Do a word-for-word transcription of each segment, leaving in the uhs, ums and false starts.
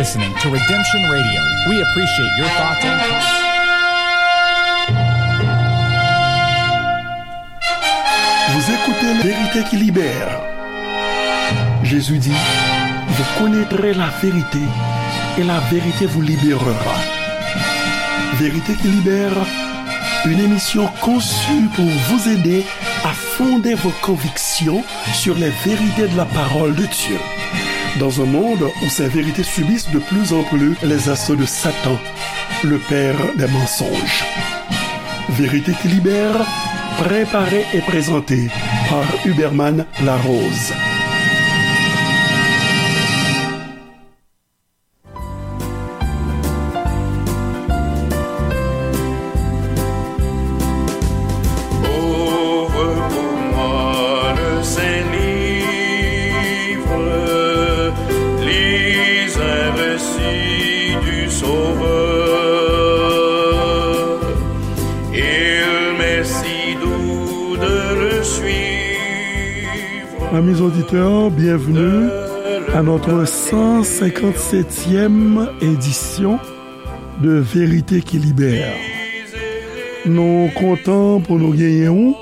Listening to Redemption Radio. We appreciate your thoughts and comments. Vous écoutez Vérité qui libère. Jésus dit, vous connaîtrez la vérité et la vérité vous libérera. Vérité qui libère, une émission conçue pour vous aider à fonder vos convictions sur les vérités de la parole de Dieu. Dans un monde où ces vérités subissent de plus en plus les assauts de Satan, le père des mensonges. Vérité qui libère, préparée et présentée par Huberman Larose. Ouvre pour moi le Saint-Livre, lis un récit du Sauveur. Il m'est si doux de le suivre. Amis auditeurs, bienvenue à notre cent cinquante-septième édition de Vérité qui libère. Nou kontan pou nou genyen ou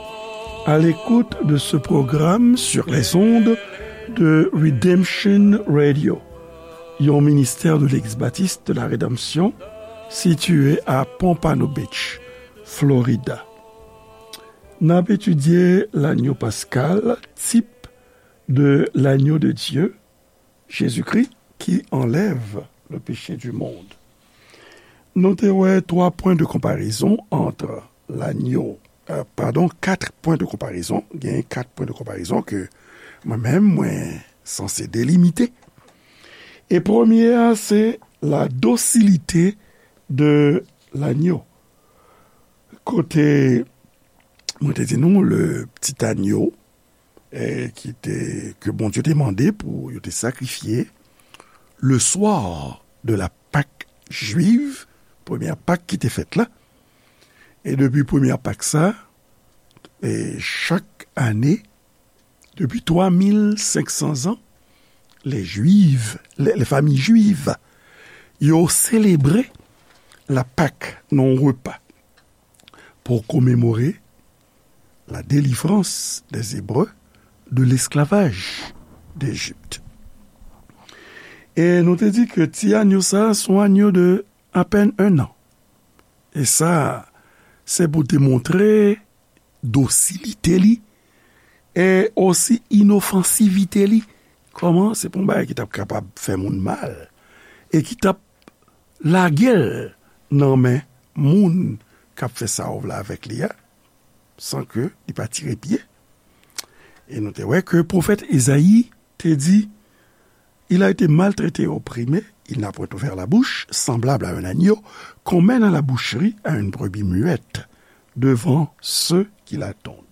à l'écoute de ce programme sur les ondes de Redemption Radio, yon ministère de l'Église baptiste de la Rédemption situé à Pompano Beach, Florida. N ap etidye lanyo paskal, type de l'agneau de Dieu, Jésus-Christ, qui enlève le péché du monde. Nou te wè twa pwen de konparezon ant lanyo, euh, padon, kat pwen de konparezon. Gen kat pwen de konparezon ke mwen menm, mwen sanse delimite. E premye a, se la dosilite de lanyo. Kote mwen te di nou, le petit agneau, eh, ki te, ke Bondye te mande pou yo te sakrifye le soir de la Pâque juive, premyè Pak ki te fèt la. E depi premyè Pak sa, e chak ane, depi twa mil senk san zan, les Juifs, les, les familles juives, yo selebre la Pâque nan yon repa pou komemore la délivrance des Hébreux de l'esclavage d'Égypte. E nou te di ke ti anyo sa a se yon anyo de apèn un an. E sa, se pou te montre dosilite li e osi inofansivite li. Kòman se pa yon bagay ki t ap kapab fè moun mal e ki t ap lage l nan men moun k ap fè sa w vle avèk li a, san ke li pa tire pye. E nou te wè ke pwofèt Ezayi te di, il a été maltraité et opprimé, il n'a point ouvert la bouche, semblable à un agneau qu'on mène à la boucherie, à une brebis muette, devant ceux qui la tondent.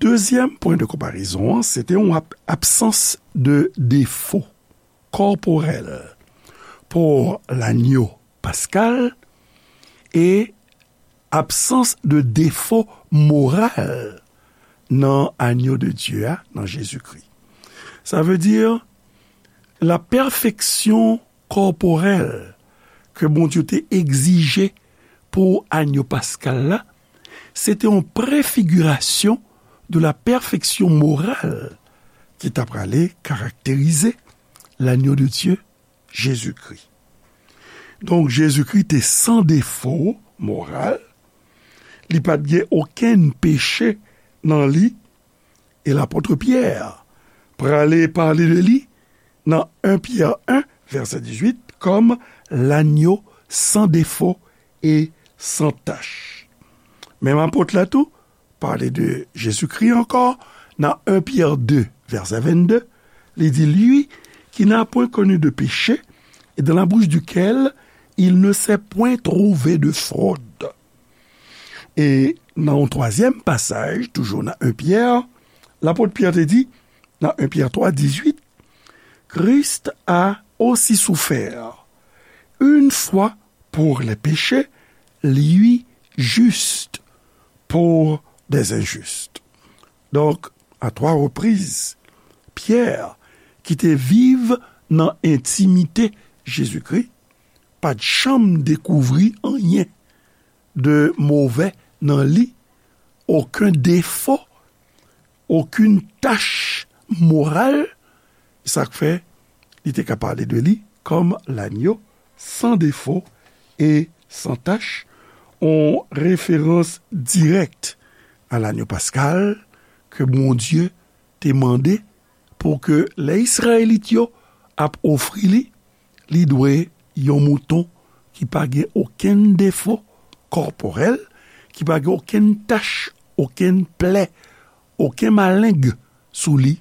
Dezyèm pwen de konparezon an, se te yon ab-, absans de defo kòporèl pou lanyo paskal e absans de defo moral nan anyo de Dye a, nan Jezikri. Sa vle di, la pèfeksyon kòporèl ke Bondye te egzije pou anyo paskal la, se te yon prefigirasyon de la pèfeksyon moral ki ta prale karakterize lanyo de Dye, Jezikri. Donk, Jezikri te san defo moral, li pa t gen okenn peche nan li, e lapot Pyè prale pale de li nan en Pyè en, vèsè dizuit, kòm lanyo san defo e san tach. Menm apot la tou pale de Jezikri ankò nan en Pyè de, vèsè vennde, li di, lui qui n'a point connu de péché et dans la bouche duquel il ne s'est point trouvé de fraude. E nan yon twazyèm pasaj, toujou nan en Pyè, lapot Pyè te di, nan en Pyè twa, dizuit, Christ a aussi souffert une fois pour les péchés, lui juste pour des injustes. Donk, à trois reprises, Pyè, ki te viv nan entimite Jezikri, pa t janm dekouvri anyen de movè nan li, okenn defo, okenn tach moral, sa k fè li te ka pale de li kòm lanyo san defo e san tach, yon referans dirèk a lanyo paskal ke Bondye te mande pou ke lè Izrayelit yo ap ofri li, li dwe yon mouton ki pa gen okenn defo kòpòrèl, ki pa gen okenn tach, okenn plè, okenn maleng sou li,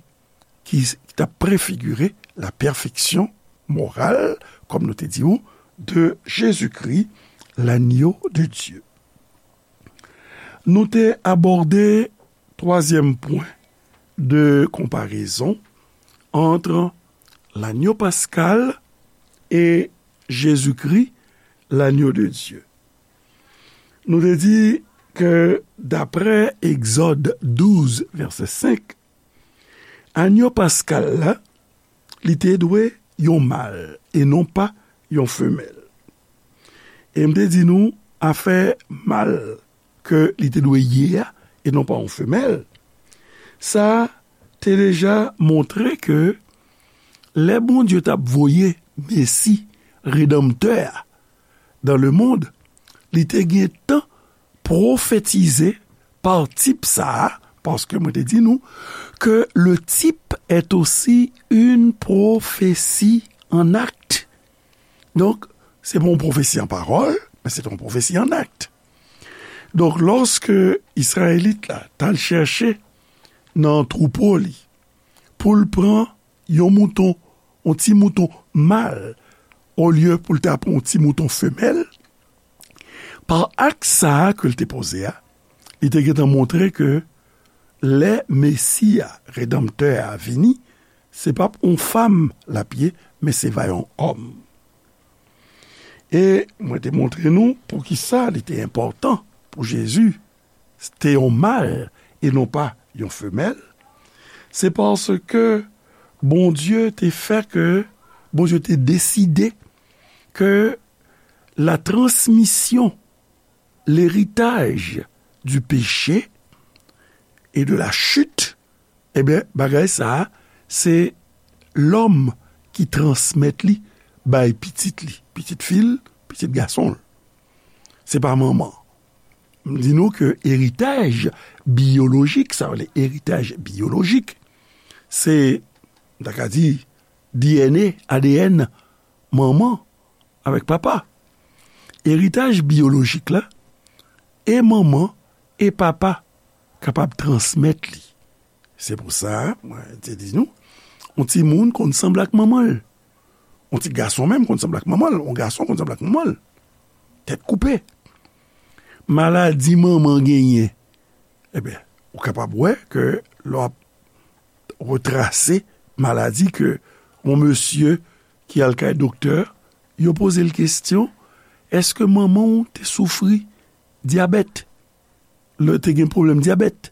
ki, ki t ap prefigire la pèfeksyon moral, kòm nou te di w, de Jezikri, lanyo de Dye. Nou te abòde twazyèm pwen de konparezon ant lanyo paskal e Jezikri, lanyo de Dye. Nou te di ke daprè Egzòd douz, vèsè senk, lanyo paskal la, li te dwe yon mal e non pa yon femèl. E m te di nou, afè mal ke li te dwe ye a, e non pa yon femèl, sa te deja montre ke lè Bondye t ap voye Mesi, Redanmtè a, dans le monde, li te gen tan pwofetize pa tip sa a, paske mwen te di nou ke le type est aussi une prophétie en acte. Donk, se pa yon pwofesi an pawòl, men se te yon pwofesi an akt. Donk, lòske Izrayelit la t al chèche nan twoupo li pou l pran yon mouton, yon ti mouton mal, olye pou l ta pran yon ti mouton femèl, pa akt sa a ke l te poze a, li te gentan montre ke lè Mesi a, Redanmtè a, vini, se p ap yon fanm l ap ye, men se va yon òm. E mwen te montre nou poukisa li te enpòtan pou Jezi te yon mal e non pa yon femèl. Se paske Bondye te fè ke, Bondye te deside ke la transmisyon, l'héritage du péché et de la chute, ebyen, bagay sa a, se lòm ki transmèt li bay pitit li, pitit fi l, pitit gason l. Se pa manman. M di nou ke eritaj biyolojik, sa vle eritaj biyolojik, se, m ta ka di, D N A, A D N manman avèk papa. Eritaj biyolojik la, e manman e papa kapab transmèt li. Se pou sa, mwen te di nou, yon timoun konn sanble ak manman l. Yon ti gason menm konn sanble ak manman l. Yon gason konn sanble ak manman l. Tèt koupe. Maladi manman genyen, ebyen, ou kapab wè ke lè w ap retrase maladi ke yon mesye ki al kay doktè, yo poze l kesyon, èske manman w te soufri dyabèt? Lè te gen pwoblèm dyabèt?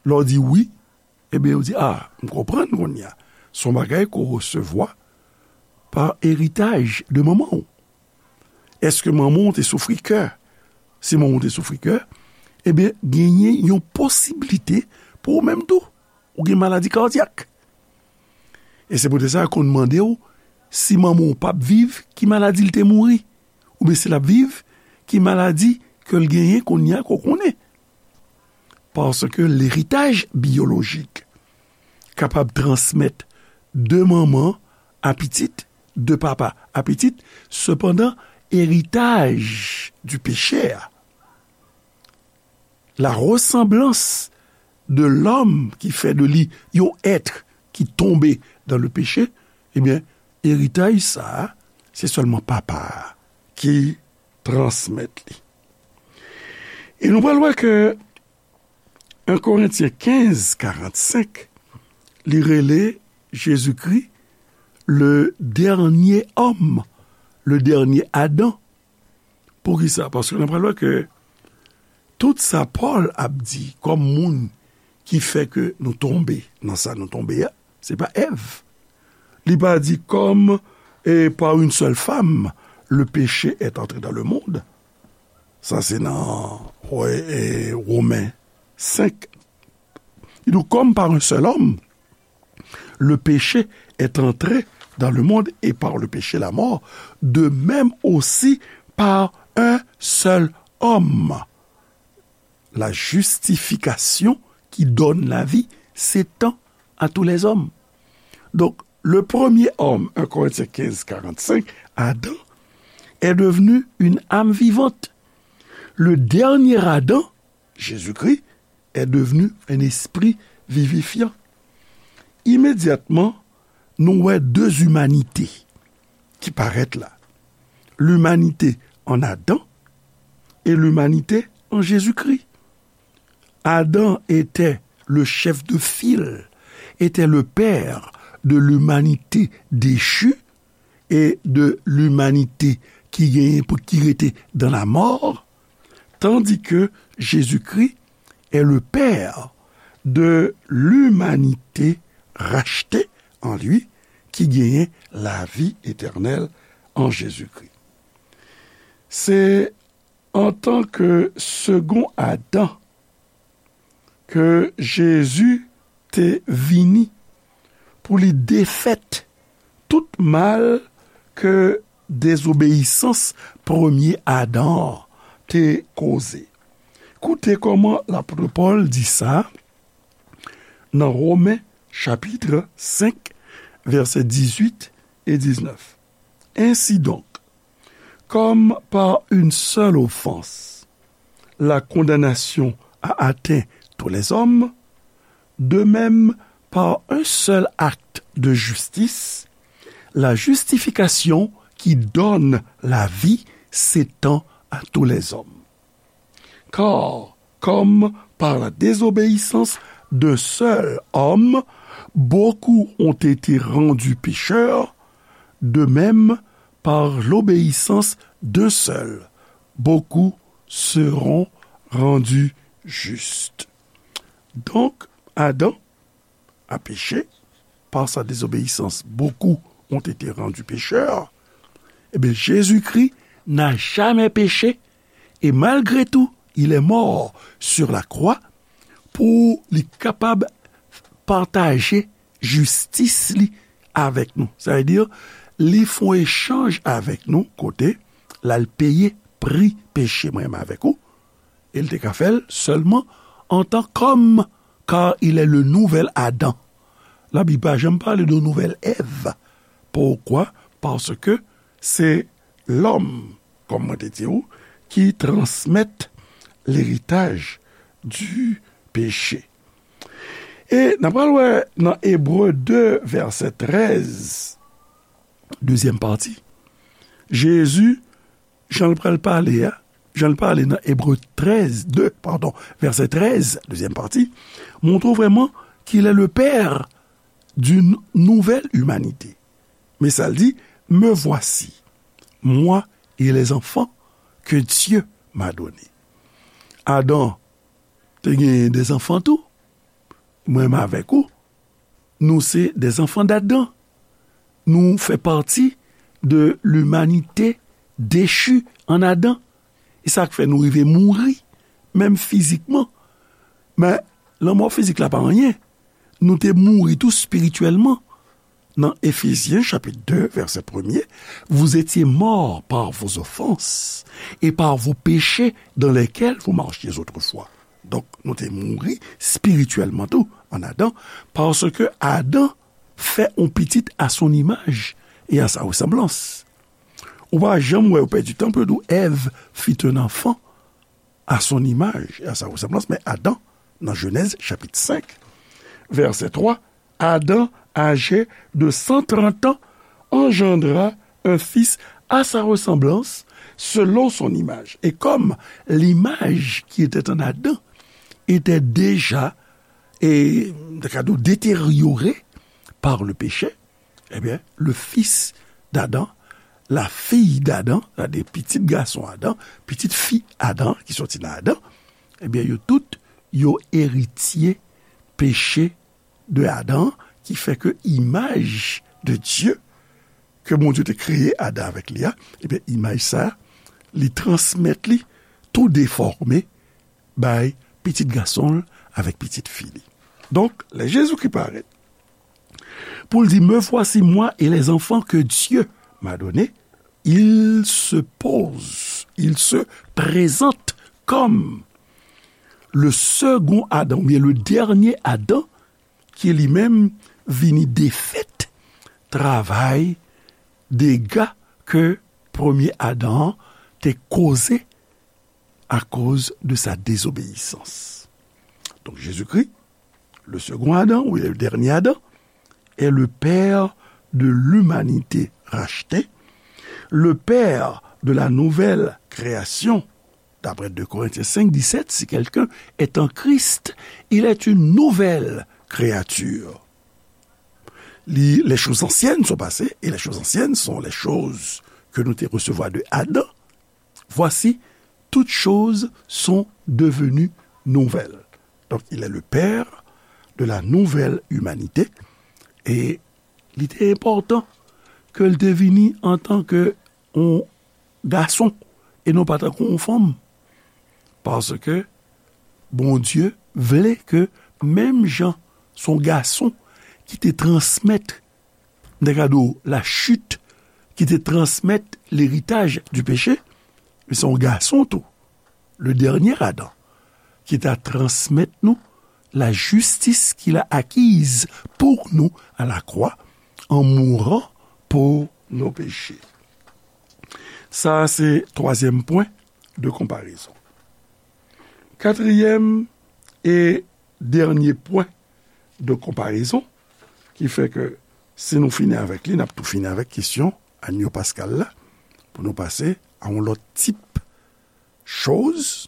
Lè w di wi, ebyen, yo di, a, m konprann kounye a. Se yon bagay ke w resevwa pa eritaj de manman w. Èske manman w te soufri kè? Si manman w te soufri kè, ebyen, genyen yon posiblite pou ou menm tou, ou gen maladi kadyak. E se poutèt sa, yo konn mande w, si manman w p ap viv, ki maladi l te mouri? Oubyen si l ap viv, ki maladi ke l genyen kounye a ke w konnen? Paske leritaj biyolojik kapab transmèt de manman a pitit, de papa a pitit, sepandan, eritaj di peche a, la ressemblance de l'homme ki fè de li yon èt ki tonbe dans le péché, ebyen, eritaj sa a, se sèlman papa a ki transmèt li. E nou pral wè ke en Korentyen kenz karannsenk, li rele Jezikri le dènye òm, le dènye Adan. Poukisa? Paske nou pral wè ke tout sa Pòl ap di kòm moun ki fè ke nou tonbe nan sa nou tonbe a, se pa Èv. Li pa di comme, et par une seule femme, le péché est entré dans le monde. Sa se nan, wè, e, Women senk. Li di, comme par un seul homme, le péché est entré dans le monde et par le péché la mort, de même aussi par un seul homme, la justification qui donne la vie s'étend à tous les hommes. Donc, le premier homme, un Corinthiens quinze, quarante-cinq, Adam, est devenu une âme vivante. Le dernier Adam, Jésus-Christ, est devenu un esprit vivifiant. Imedyatman, nou wè de imanite ki parèt la. Limanite an Adan e limanite an Jezikri. Adam était le chef de file, était le père de l'humanité déchue et de l'humanité qui gagne, qui était dans la mort, tandis que Jésus-Christ est le père de l'humanité rachetée en lui, qui gagne la vie éternelle en Jésus-Christ. Se antanke segon Adan ke Jezi te vini pou li defèt tout mal ke dezobeyisans premye Adan an te koze. Koute kòman lapot Pòl di sa nan Women chapit senk, vèsè dizuit e diznèf. Ainsi donc, comme par une seule offense, la condamnation a atteint tous les hommes, de même, par un seul acte de justice, la justification qui donne la vie s'étend à tous les hommes. Car, comme par la désobéissance d'un seul homme, beaucoup ont été rendus pécheurs, de même, par l'obéissance d'un seul, beaucoup seront rendus justes. Donc, Adam a péché, par sa désobéissance, beaucoup ont été rendus pécheurs. Eh bien, Jésus-Christ n'a jamais péché, et malgré tout, il est mort sur la croix pou li kapab pataje jistis li avèk nou. Sa vle di, li fè yon echanj avèk nou, kote l al peye pri peche mwen menm avèk ou, e l te ka fè l sèlman antan kòm, car il est le nouvel Adam. Labib pa janm pale de nouvèl Èv. Poukwa? Paske se lòm, kòm mwen te di w, ki transmèt leritaj di peche. E n ap pral wè nan Ebre de, vèsè trèz, dezyèm pati, Jezi, jan l pral pale a, jan l pale nan Ebre trèz, de, padon, vèsè trèz, dezyèm pati, montre w vrèman qu'il est le père d'une nouvelle humanité. Men sa l di, me voici, moi et les enfants que Dieu m'a donnés. Adan te genyen de zanfan tou. Mwen menm avèk ou, nou se de zanfan d'Adan. Nou fè pati de limanite dechi an Adan. E sa k fè nou rive mouri, menm fizikman. Men, lanmò fizik la pa anyen. Nou te mouri tou espirityèlman. Nan Efezyen, chapit de, vèsè premye, vous étiez morts par vos offenses et par vos péchés dans lesquels vous marchiez autrefois. Donk, nou te mouri espirityèlman tou an Adan, paske Adan fè yon pitit à son image et à sa ressemblance. Ou pa janm wè, ou pèdi tan pou yo di w Èv fit un enfant à son image et à sa ressemblance, men Adan, nan Jenèz chapit senk, vèsè twa, Adam, âgé de cent trente ans, engendra un fils à sa ressemblance, selon son image. Et comme l'image qui était en Adam était déjà, et, détériorée par le péché, eh bien, le fils d'Adam, la fille d'Adam, c'est-à-dire pitit gason Adan, pitit fi Adan ki soti nan Adan, eh bien, yo tout, yo eritye peche de Adan, ki fè ke imaj de Dye, ke Bondye te kreye Adan avèk li a, ebyen, imaj sa, li transmèt li tou defòme bay pitit gason l avèk pitit fi li. Donk, lè Jezikri parèt, pou l di, Me voici moi et les enfants que Dieu m'a donnés, il se pose, il se présente comme le second Adam, oubyen le dènye Adan, ki li menm vini defèt travay dega ke premye Adan an te koze akoz de sa désobéissance. Donc Jésus-Christ, le second Adam, ou le dernier Adam, est le père de l'humanité rachetée, le père de la nouvelle création. D'après deux Corinthiens cinq dix-sept, si quelqu'un est en Christ, il est une nouvelle créature. Li, les choses anciennes sont passées, et les choses anciennes sont les choses que nou te resevwa de Adan. Voici, toutes choses sont devenues nouvelles. Donc, il est le père de la nouvelle humanité. E li te enpòtan ke l te vini antanke yon gason e non pa tankou yon fanm. Paske Bondye vle ke menm jan se yon gason ki te transmèt, m te ka di w, la chute, ki te transmèt leritaj di peche, men se yon gason tou, le dernier Adam, ki ta transmèt nou la justice qu'il a acquise pour nous à la croix en mourant pour nos péchés. Sa a se twazyèm pwen de konparezon. Katriyèm e dènye pwen de konparezon, ki fè ke si nou fini avèk li, n ap tou fini avèk kesyon Anyo Paskal la, pou nou pase a yon lòt tip choz.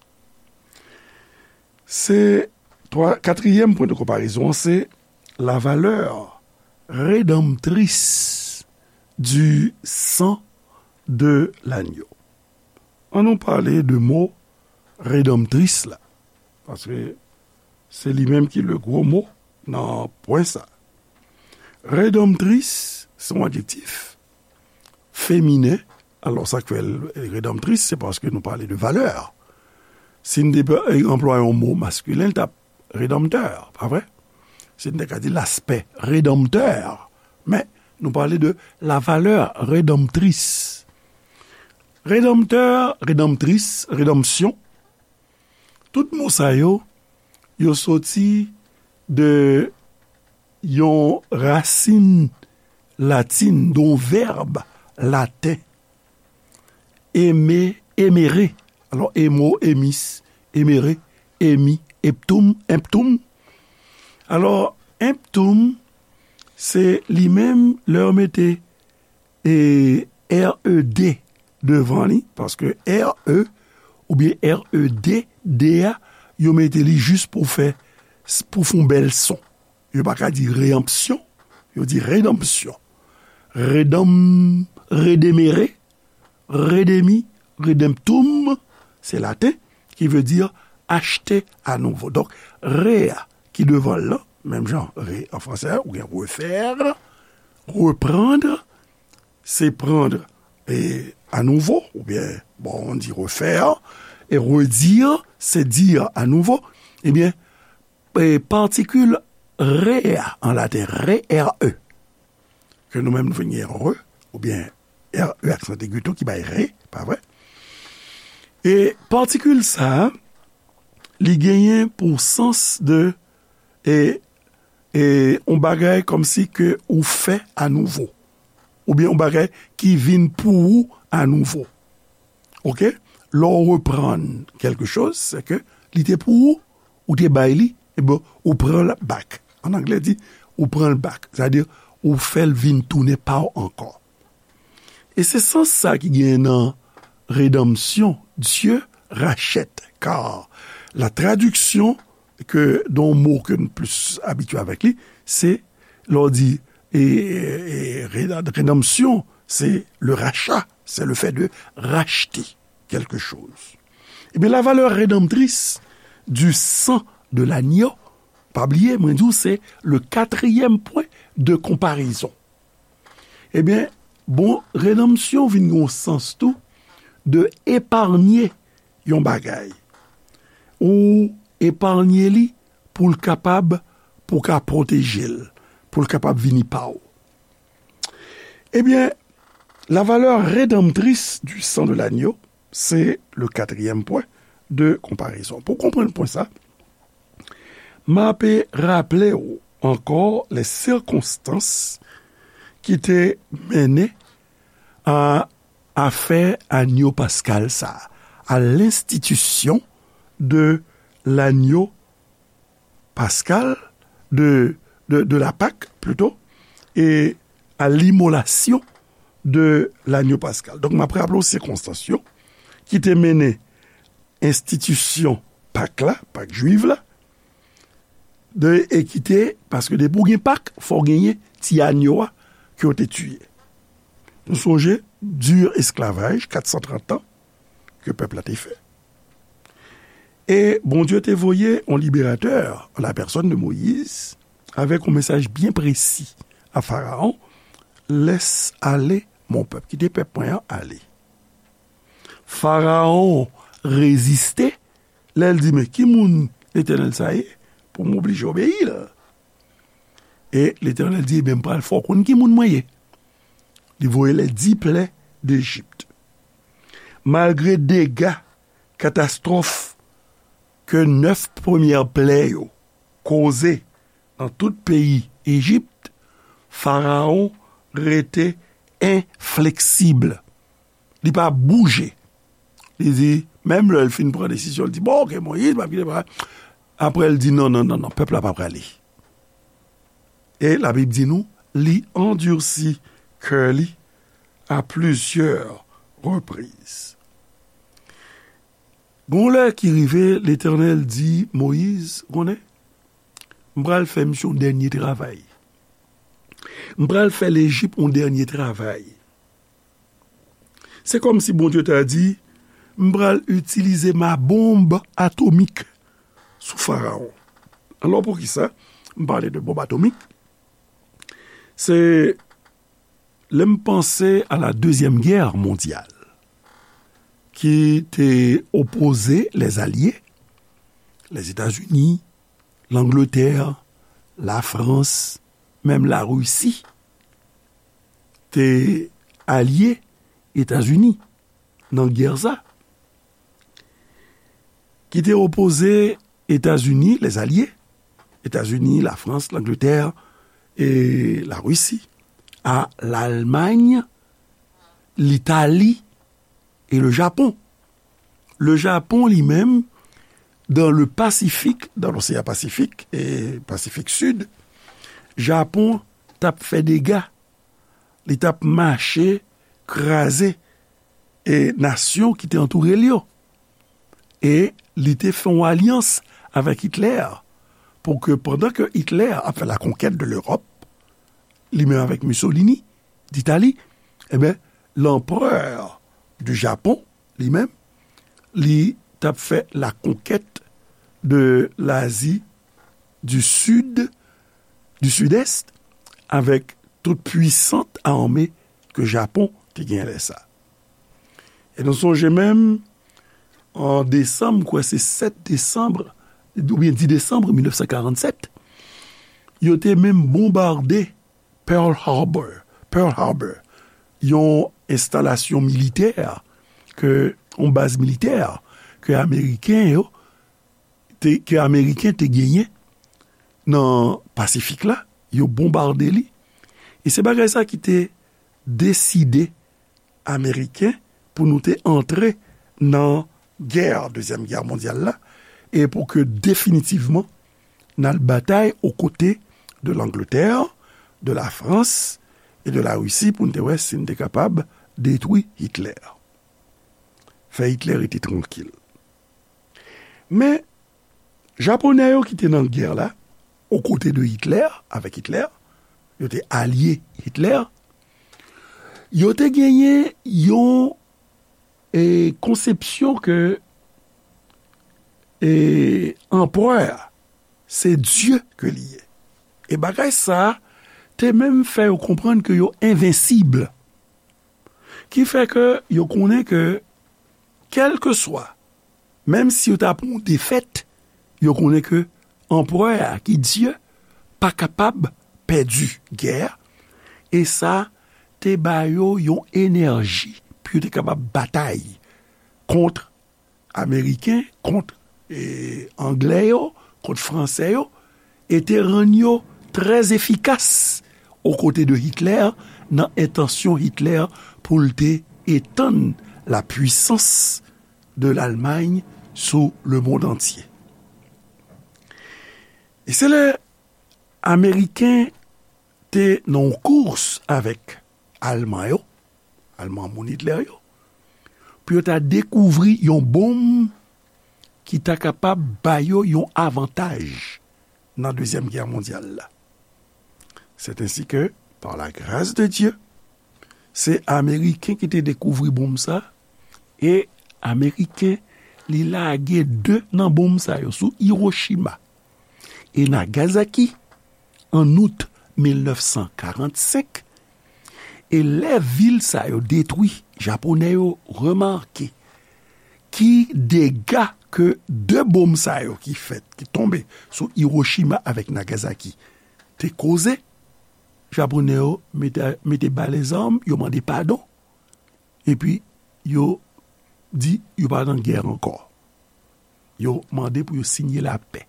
Se twa, katriyèm pwen de konparezon an, se la valeur rédemptrice du sang de l'agneau. An nou pale de mo redanmtris la, paske se li menm ki le gwo mo nan pwen sa. Redanmtris se yon adjektif feminen. Alò, sa k fè l redanmtris, se paske nou pale de valè. Si n te anplwaye yon mo maskilen, l t ap redanmtè, pa vre? Si n te ka di l'aspect rédempteur, men nou pale de la valeur rédemptrice. Redanmtè, redanmtris, redanmsyon, tout mo sa yo, yo soti de yon rasin latin, de yon vèb laten, eme, emere. Alò, emo, emis, emere, emi, emptum, emptum. Alò, emptum, se li menm, lè yo mete e R E D devan li, paske R E oubyen R E D, D a, yo mete li jis pou fè, pou fè yon bèl son. Yo pa ka di reyanpsyon, yo di redanmsyon. Redanm, redemere, redemi, redemptum, se laten, ki vle di achte anouvo. Donk, re a ki devan l lan, menm jan re an fransè, ou gen refaire, reprendre, c'est prendre et à nouveau, ou bien, bon, on dit refaire, et redire, c'est dire à nouveau, ebyen, e, patikil re a an laten, re, R E, ke nou menm nou vin gen re, oubyen R E aksan egi tou ki bay re, pa vre? E patikil sa a, li genyen pou sans de, e, e, yon bagay kòmsi ke ou fè anouvo, oubyen yon bagay ki vin pou ou anouvo. Oke? Lè w reprann kèlke choz, se ke li te pou ou, ou te bay li, ebyen, ou pran l back. An anglè di, ou pran l back. Sètadi, ou fè l vin tounen pa w ankò. E se sans sa ki genyen nan redanmsyon, Dieu rachète, car la traduction ke, de yon mo ke nou plis abitye avèk li, se lè w di, e, e, e, reda-, redanmsyon, se le rachat, c'est le fait de racheter quelque chose. Ebyen, la valeur rédemptrice du sang de l'agneau, pa bliye, mwen di w, se le katriyèm pwen de konparezon. Ebyen, bon, redanmsyon vin gen yon sans tou de epaye yon bagay. Ou epaye li pou l kapab, pou w ka pwoteje l, pou l kapab vini pa w. Ebyen, la valeur rédemptrice du sang de l'agneau, c'est le quatrième point de comparaison. Pou w konprann pwen sa, m ape raple w ankò les circonstances ki te mennen a afè anyo paskal sa, à l'institution de l'agneau pascal, de, de, de la Pâque, plutôt, et à l'immolation de l'agneau pascal. Donk, m ap raple w sikonstans yo ki te mennen enstitisyon Pak la, Pak jwiv la, de, e ki te, paske depi w gen Pak, fò w genyen ti anyo a ke w te tiye. Nou sonje, di esklavaj, kat san trant an, ke pèp la te fè. E Bondye te voye yon liberatè, an la pèsòn de Moyiz, avèk yon mesaj byen presi a Farawon, laisse aller mon peuple, kite pèp mwen an ale. Farawon reziste, lè l di, men ki moun Letènèl sa ye pou m oblije obeyi l? E Letènèl di, ebyen, m pral fè w konn ki moun mwen ye. Li voye les dix plaies d'Égypte. Malgre dega, katastwòf ke nèf premyè plè yo koze nan tout peyi Ejip, Farawon rete enfleksib. Li pa bouje. Li di, menm lè l fin pran desizyon, li di, bon, oke, Moyiz, m ap kite pa. Apre, l di, non, non, non, non, pèp la pa prale. E Labib di nou, li andisi kè li à plusieurs reprises. Gon lè ki rive, Letènèl di Moyiz, konnen, m pral fè misye yon dènye travay. M pral fè Lejip yon dènye travay. Se kòmsi Bondye ta di, m pral itilize ma bonb atomik sou Farawon. Alò, poukisa m pale de bonb atomik? Se lè m panse à la Deuxième Guerre mondiale, ki te opoze les alliés, Lèzetazini, Langletè, Lafrans, menm Larisi, te alye Etazini nan gè sa, ki te opoze Etazini, les alliés, Etazini, Lafrans, Langletè e Larisi, a Lalmany, Litali e le Japon. Le Japon, li menm, dans le Pacifique, dans l'océan Pacifique e Pasifik Sid, Japon t ap fè dega. Li t ap mache kraze e nasyon ki te antoure l yo. E li te fè yon alyans avèk Hitler pou ke pandan ke Hitler ap fè la conquête de l'Europe, li menm avèk Mussolini d'Italie, ebyen, l'empereur du Japon, li menm, li t ap fè la conquête de l'Asie du Sud, du Sud-Est, avèk tout puisante armée ke Japon te gen lè sa. E nou sonje menm, an desanm, m kwè se sèt desanm, oubyen dis desanm mil nèf san karannsèt, yo te menm bonbade Pearl Harbor, Pearl Harbor, yon enstalasyon militè, ke, yon baz militè ke Ameriken yo, te, ke Ameriken te genyen nan Pasifik la, yo bonbade li. E se bagay sa ki te deside Ameriken pou nou te antre nan gè, Dezyèm Gè Mondyal la, e pou ke definitivman n al batay o kote de Langletè, de Lafrans e de Larisi pou n te wè si n te kapab detwi Hitler. Fè Hitler rete trankil. Men, Japonè yo ki te nan gè la, o kote de Hitler, avèk Hitler, yo te alye Hitler, yo te genyen yon, e, konsepsyon ke, e, anperè a, se Dye ke li ye. E bagay sa a te menm fè yo konprann ke yo envensib. Ki fè ke yo konnen ke, kèlkeswa, menm si yo ta pran yon defèt, yo konnen ke anperè a, ki Dye, pa kapab pèdi gè a, e sa te ba yo yon enèji pou yo te kapab batay kont Ameriken, kont, e, Anglè yo, kont Fransè yo, e te rann yo trè efikas o kote de Hitler, nan entansyon Hitler pou l te etann la puisans de Lalmay sou le mond antye. E se lè Ameriken te nan yon kous avèk Alman yo, Alman moun Hitler yo, pou yo ta dekouvri yon bonm ki ta kapab ba yo yon avantaj nan Dezyèm Gè Mondyal la. C'est ainsi que, par la grâce de Dieu, se Ameriken ki te dekouvri bonm sa, e Ameriken, li lage de nan bonm sa yo sou Hiroshima e Nagasaki an out mil nèf san karannsenk, e lè vil sa yo detwi, Japonè yo remake ki dega ke de bonm sa yo ki fèt, ki tonbe sou Hiroshima avèk Nagasaki te koze, Japonè yo mete, mete ba lèzam, yo mande padon, epi yo di yo pa nan gè ankò. Yo mande pou yo siyen lapè.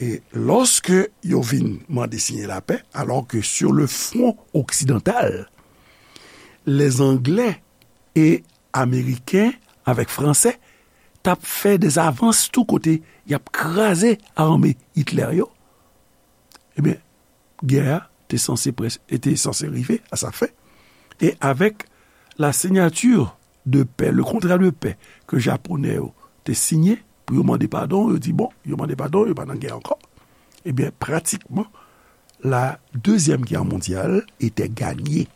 E lòske yo vin mande siyen lapè, alors que sur le front occidental, les Anglais e Ameriken avèk Fransè t ap fè dè avans tou kote y ap kraze ame Hitler yo, ebyen, gè a te sanse près-, te sanse rive a sa fen. E avèk la signature de paix, le contrat de paix ke Japonè yo te siyen pou yo mande padon, yo di, bon, yo mande padon, yo pa nan gè ankò. Ebyen, pratikman, la Deuxième Guerre mondiale était gagnée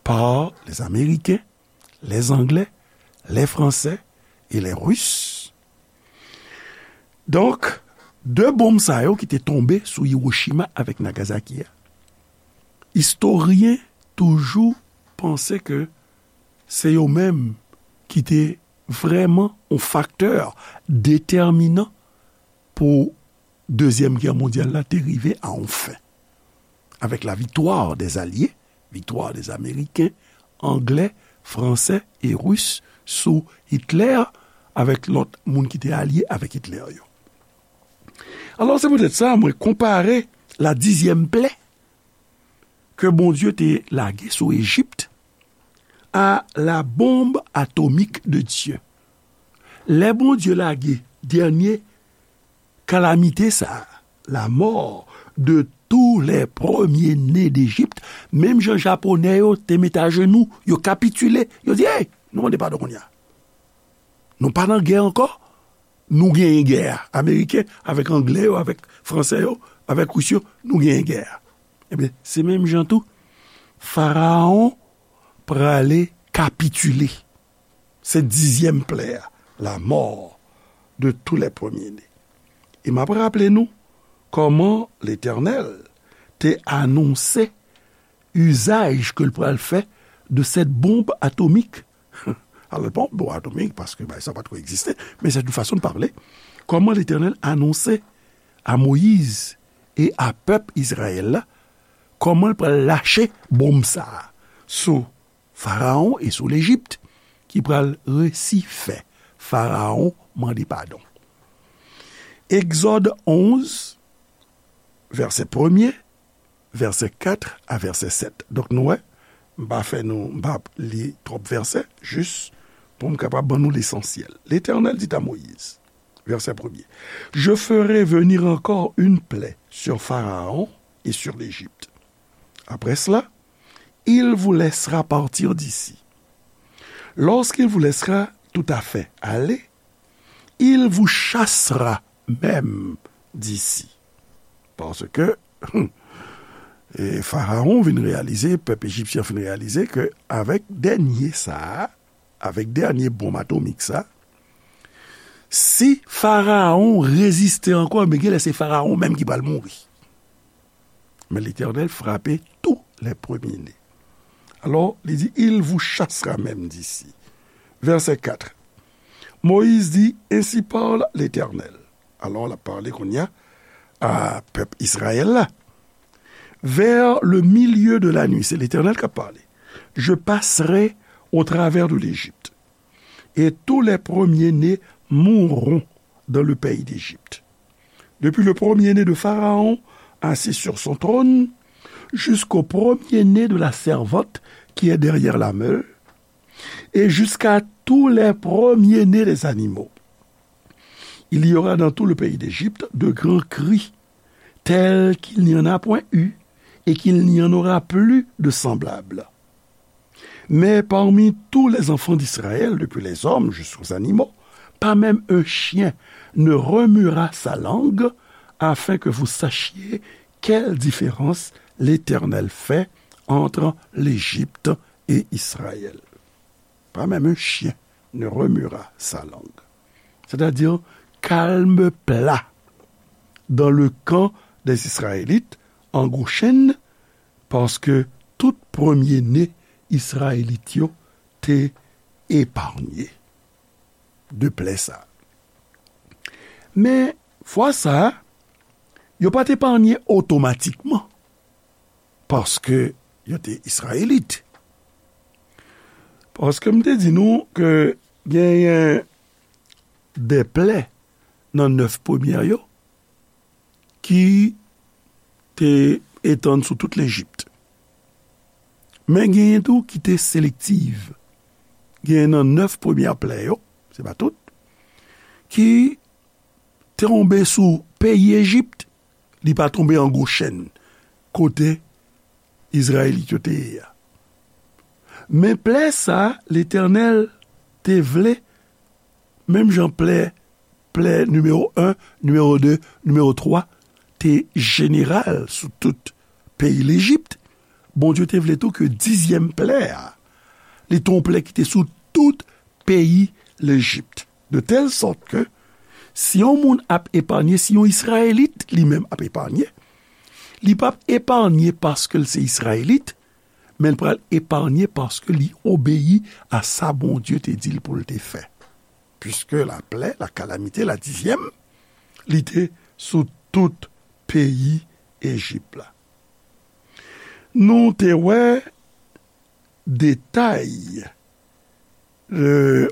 par les Américains, les Anglais, les Français et les Russes. Donk, de bonm sa yo ki te tonbe sou Hiroshima avèk Nagasaki a, istoryen toujou panse ke se yo menm ki te vrèman yon faktè detèminan pou Dezyèm Gè Mondyal la te rive a yon fen. Avec la victoire des Alliés, victoire des Américains, Anglais, Fransè e Ris sou Hitler, avèk lòt moun ki te alye avèk Hitler yo. Alò, se poutèt sa, mwen konpare la dizyèm plè ke Bondye te lage sou Ejip a la bombe atomique de Dieu. Lè Bondye lage dènye kalamite sa a, la mort de tous les premiers-nés d'Égypte, menm jan Japonè yo te met ajenou, yo kapitile, yo di, hey, nou mande padon kounye a. Nou pa nan gè ankò, nou genyen gè a. Ameriken avèk Anglè yo, avèk Fransè yo, avèk Ris yo, nou genyen gè a. Ebyen, se menm jan tou, Farawon prale kapitile. Se dizyèm plè a, la mort de tous les premiers-nés. E m ap raple nou kòman Letènèl te anonse izaj ke l pral fè de cette bombe atomique. Alò, l pa yon bonm atomik, paske bagay sa pa t ko egziste, men c'est une façon de parler. Kòman Letènèl anonse a Moyiz e a pèp Izrayèl la, kòman l pral lache bonm sa a sou Farawon e sou Lejip, ki pral resi fè Farawon mande padon. Egzòd onz, vèsè premye, vèsè kat a vèsè sèt. Donk, nou wè, m pa fè nou, m pa li twòp vèsè, jis pou m kapab ban nou lesansyèl. L'Éternel dit à Moïse, verset premier, je ferai venir encore une plaie sur Pharaon et sur l'Égypte. Après cela, il vous laissera partir d'ici. Lorsqu'il vous laissera tout à fait aller, il vous chassera même d'ici. Paske, e, Farawon vin reyalize, pèp ejipsyen vin reyalize ke avèk dènye sa a, avèk dènye bonm atomik sa, si Farawon reziste ankò, men genlè se Farawon menm ki pral mouri. Mais l'Éternel frappait tous les premiers-nés. Alors, il dit, il vous chassera même d'ici. Verset quatre. Moïse dit, ainsi parle l'Éternel. Alò, l ap pale kounye a a pèp Izrayèl la. Vers le milieu de la nuit, c'est l'Éternel qui a parlé. Je passerai au travers de l'Égypte, et tous les premiers-nés mourront dans le pays d'Égypte. Depuis le premier-né de Pharaon, assis sur son trône, jusqu'au premier-né de la servante qui est derrière la meule, et jusqu'à tous les premiers-nés des animaux. Il y aura dans tout le pays d'Égypte de grands cris, tels qu'il n'y en a point eu, et qu'il n'y en aura plus de semblables. Mais parmi tous les enfants d'Israël, depuis les hommes jusqu'aux animaux, pas même un chien ne remuera sa langue, afin que vous sachiez quelle différence l'Éternel fait entre l'Égypte et Israël. Pas même un chien ne remuera sa langue. C'est-à-dire, calme plat dans le camp des Israélites en Goshen, paske tout premye ne Izrayelit yo te eparnye de plè sa a. Men, fwa sa a, yo pa t eparnye otomatikman, paske yo te Izrayelit. Paske m te di nou ke genyen de plè nan nèf premyè yo ki te etann sou tout Lejip. Men genyen tou ki te selektiv. Genyen nan nèf premyè plè yo, se pa tout, ki tonbe sou peyi Ejip, li pa tonbe an Goshen, kote Izrayelit yo te ye a. Men plè sa a, Letènèl te vle, menm jan plè, plè nimewo en, nimewo de, nimewo twa, te jeneral sou tout peyi Lejip, Bondye te vle tou ke dizyèm plè a, li te yon plè ki te sou tout peyi Lejip. De tèl sòt ke, si yon moun ap eparnye, si yon Izrayelit li menm ap eparnye, li p ap eparnye paske l se Izrayelit, men l pral eparnye paske li obeyi a sa Bondye te di l pou l te fè. Piske laplè, la kalamite, la dizyèm, li te sou tout peyi Ejip la. Nou te wè detay, e,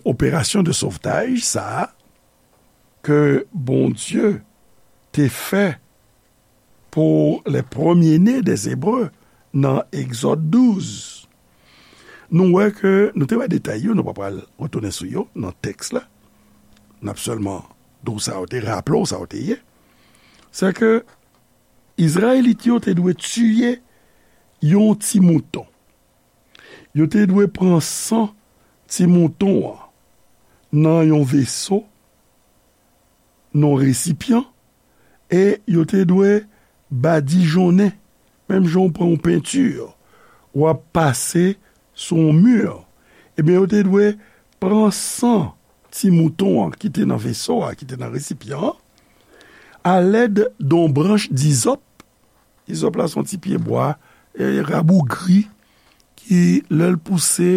operasyon de sovtaj sa a ke Bondye te fè pou les premiers-nés des Hébreux nan Egzòd douz. Nou wè ke, nou te wè detay yo, nou pa pral retounen sou yo nan tèks la. N ap sèlman di w sa yo te, raple w sa yo te ye. Se ke Izrayelit yo te dwe tiye yon ti mouton. Yo te dwe pran san ti mouton an nan yon veso, nan yon resipyan, e yo te dwe badijonnen, menm jan w pran yon penti, w ap pase sou yon mi, ebyen, yo te dwe pran san ti mouton an ki te nan veso a, ki te nan resipyan an, alèd de yon branch dizòp. Izòp la se yon ti pyebwa, e, rabougri, ki, lè l pouse,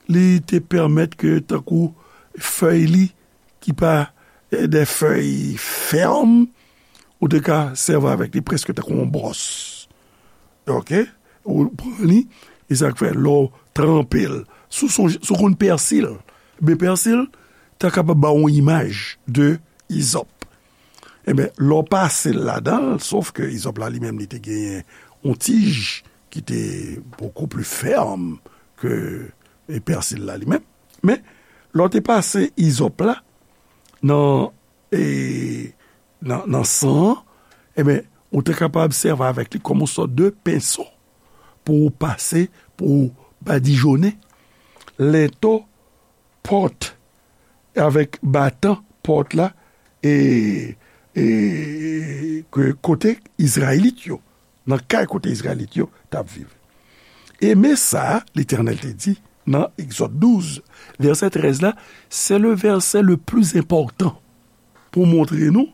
li te pèmèt ke, tankou fèy li, ki pa, e, de fèy fèm, ou te ka sèvi avèk li prèske tankou yon bwòs. Oke? Ou pran li, e sa k fè, lè w tranpe l, si w sonje, si w konn pèsi l, men pèsi l ta kapab ba w yon imaj de izòp. Ebyen, lè w pase l ladan l, sof ke izòp la li menm li te genyen yon tij ki te bokou pli fèm ke, e, pèsi l la li menm. Men, lè w te pase izòp la nan, e, nan, nan san an, ebyen, ou te kapab sèvi avèk li kòm yon sòt de penso pou w pase, pou w badijonnen lento pòt, avèk batan pòt la, e, e, ke kote Izrayelit yo, nan kay kote Izrayelit yo t ap viv. E men sa Letènèl te di nan Egzòd douz, vèsè trèz la, c'est le verset le plus important pou montre nou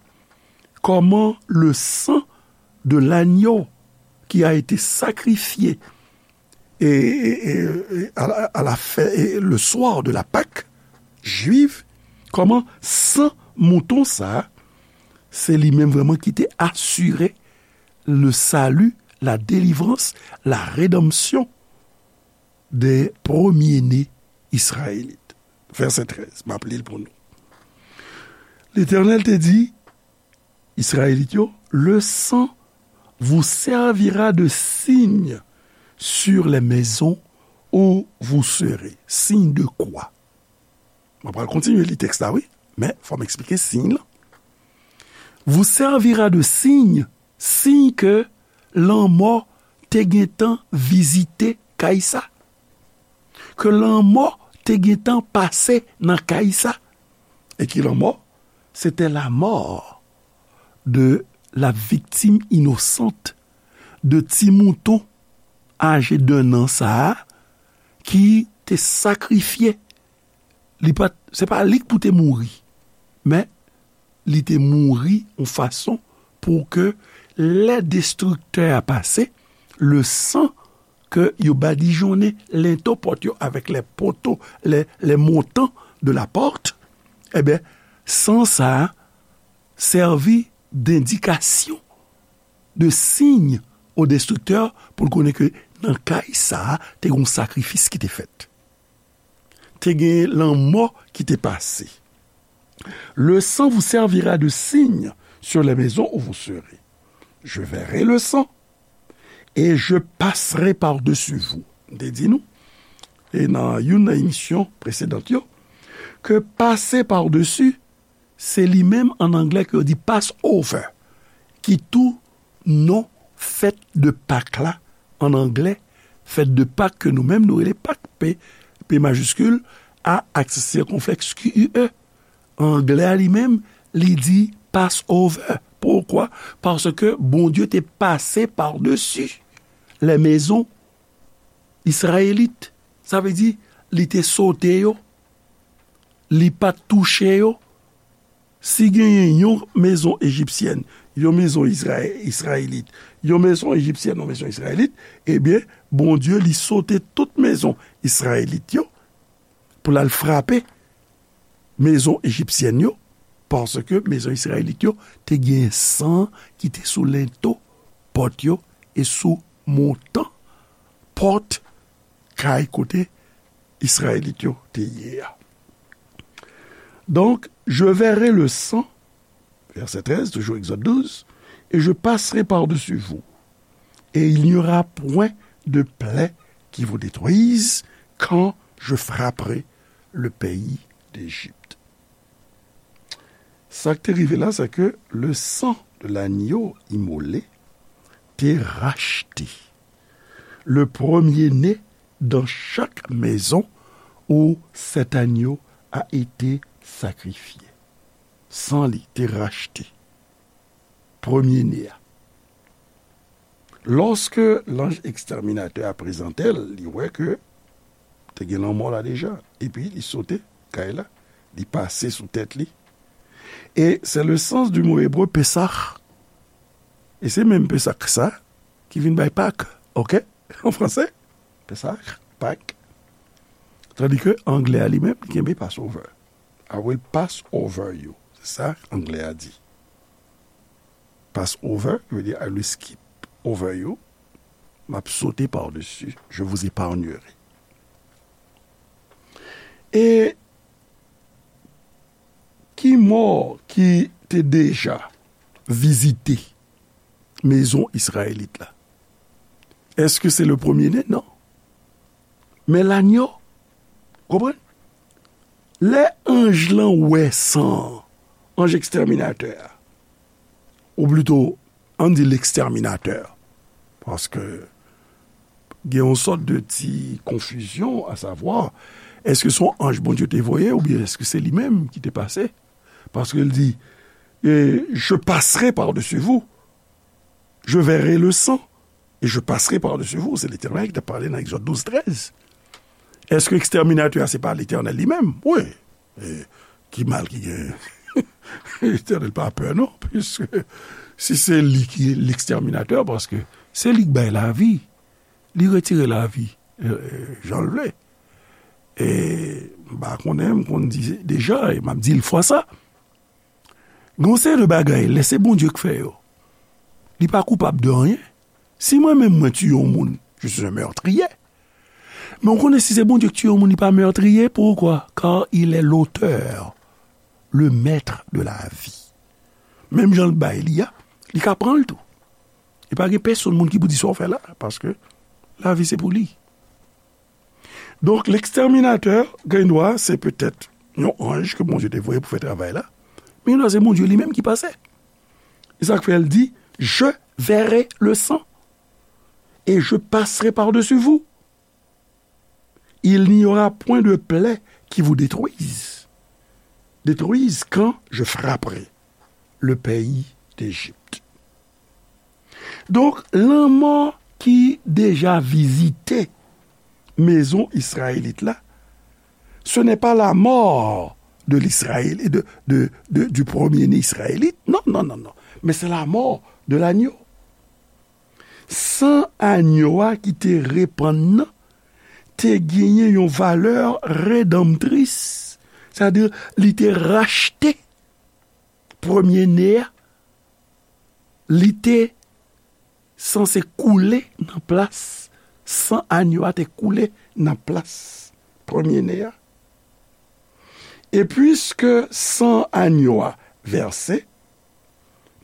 kòman le sang de l'agneau qui a été sacrifié et, et, et, et à la, à la fin, et le soir de la Pâque juive, kòman san mouton sa, se li menm vrèman ki te asire le salut, la délivrance, la rédemption des premiers-nés israélites. Vèsè trèz, m ap li l pou nou. Letènèl te di Izrayelit yo, le sang vous servira de signe sur les maisons où vous serez. Signe de quoi? Mwen pral kontinye li tèks la, wi, men fò m eksplike siy lan. Vous servira de signe, siy ke lanmò te gentan vizite kay sa, ke lanmò te gentan pase nan kay sa. E ki lanmò? C'était la mort de la victime innocente, de ti mouton aje d'un an sa a, ki te sakrifye. Li pa, se pa li k pou te mouri, men li te mouri yon fason pou ke lè destriktè a pase, le sang ke yo badijonnen lento pòt yo avèk les poteaux, les, les montants de la porte, ebyen, san sa a sèvi dendikasyon, de signe au destructeur, pou l konnen ke nan kay sa a, te gen yon sakrifis ki te fèt. Te gen lanmò ki te pase. Le sang vous servira de signe sur les maisons où vous serez. Je verrai le sang et je passerai par-dessus vous. M te di nou, e nan youn nan emisyon presedan yo, ke pase pa desi, se li menm an anglè ke yo di Passover, ki tou non fèt de Pak la an anglè, fèt de Pak ke nou menm nou rele Pak, P, P majiskil, A aksan sikonflèks Q U E. Anglè a li menm, li di Passover. Poukwa? Paske Bondye te pase pa desi lè mezon Izrayelit. Sa vle di, li te sote yo, li pa t touche yo. Si genyen yon mezon ejipsyèn, yon mezon Izraye-, Izrayelit, yon mezon ejipsyèn, yon mezon Izrayelit, ebyen, Bondye, li sote tout mezon Izrayelit yo pou l al frape mezon ejipsyèn yo, paske mezon Izrayelit yo te gen san ki te sou lento pòt yo e sou montan pòt kay kote Izrayelit yo te ye a. Donc, je verrai le sang, verset treize, toujours Exode douze, et je passerai par-dessus vous, et il n'y aura point de plaie qui vous détruise quand je frapperai le pays d'Égypte. Sa k te rive la, se ke le sang de l'agneau immolé te rachte le premier-né dans chaque maison où cet agneau a été sacrifié. San li te rachte premye ne a. Lòske lanj ekstèminatè a prezante l, li wè ke te gen lanmò la deja. Epi li sote kay la, li pase sou tèt li. E se le sans du mot hébreu Pesach. E se menm Pesach sa ki vin bay Pak, oke? An franse, Pesach, Pak. Tandi ke anglè a li menm, li kenbe Passover. I will pass over you. Se sa anglè a di. Pass over, ki vle di I will skip over you. M ap sote pa desi. Je vous épargnerai. E ki mò ki te deja vizite mezon Izrayelit la? Èske se le premye ne? Non. Men lanyo, konprann? Lè anj lan wè san an, anj ekstèminatè a, ou plito, ann di lekstèminatè, paske gen yon sòt de ti konfizyon, a savwa, èske se yon anj Bondye te voye oubyen èske se li menm ki te pase? Paske l di, eh, je passerai par-dessus vous, je verrai le sang, et je passerai par-dessus vous. Se Letènèl ki t ap pale nan Egzòd douz trèz. Èske ekstèminatè a se pa Letènèl li menm? Wi. E ki mal ki genyen? Letènèl pa pè, non, piske si se li ki lekstèminatè, paske Se li k bay lavi. Li retire lavi, e, e, jan l vle. E m pa konnen, m konn di deja, e m ap di l fwa sa. Gen yon seri de bagay, lè se Bondye k fè yo, li pa koupab de anyen. Si mwen menm mwen tiye yon moun, je suis un meurtrier. Men w konnen si se Bondye k tiye yon moun, li pa meurtrier. Pourquoi? Car il est l'auteur, le maître de la vie. Menm jan l bay li a, li ka pran l tou. E pa gen pèsonn moun ki pou di sa w fè la, paske lavi se pou li. Donk, lekstèminatè, gen dwa, se petèt yon anj ke Bondye te voye pou fè travay la. Men gen dwa se Bondye li menm ki pase. E sa k fè l di, je verrai le sang et je passerai par-dessus vous. Il n'y aura point de plaie qui vous détruise, détruise quand je frapperai le pays d'Égypte. Donk, lanmò ki deja vizite mezon Izrayelit la, ce n'est pas la mort de l'Israël, de, de, de, du premier-né israélite. Non, non, non, non. Men se la mò de lanyo. San anyo a ki te repann nan te genyen yon valè redanmtris. Sètadi, li te rachte premye ne a, li te sanse koule nan plas, san anyo a te koule nan plas premye ne a. E piske san anyo a vèse,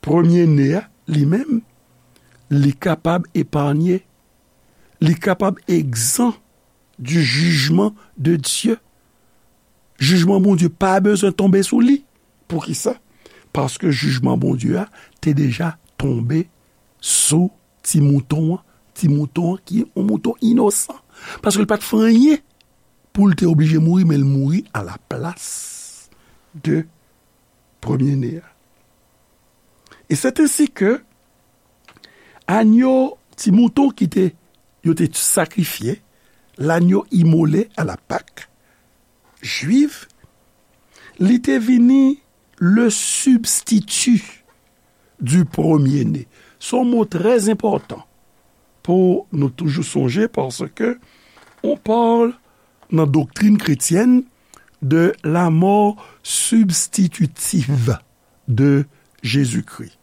premye ne a, li menm, li kapab epanye, li kapab egzan du jugement de Dieu. Jijman Bondye pa bezwen tonbe sou li. Poukisa? Paske jijman Bondye a te deja tonbe sou ti mouton an, ti mouton an ki yon mouton inosan. Paske l pa t fè anyen pou l te oblije mouri, men l mouri a la plas de premye ne a. E c'est ainsi que anyo, ti mouton ki te, yo te sakrifye, l'agneau immolé à la Pâque juive, li te vini le substitut du premier-né. Se yon mo trè enpòtan pou nou toujou sonje, paske on parle nan doktrin kretyèn de la mort substitutive de Jésus-Christ.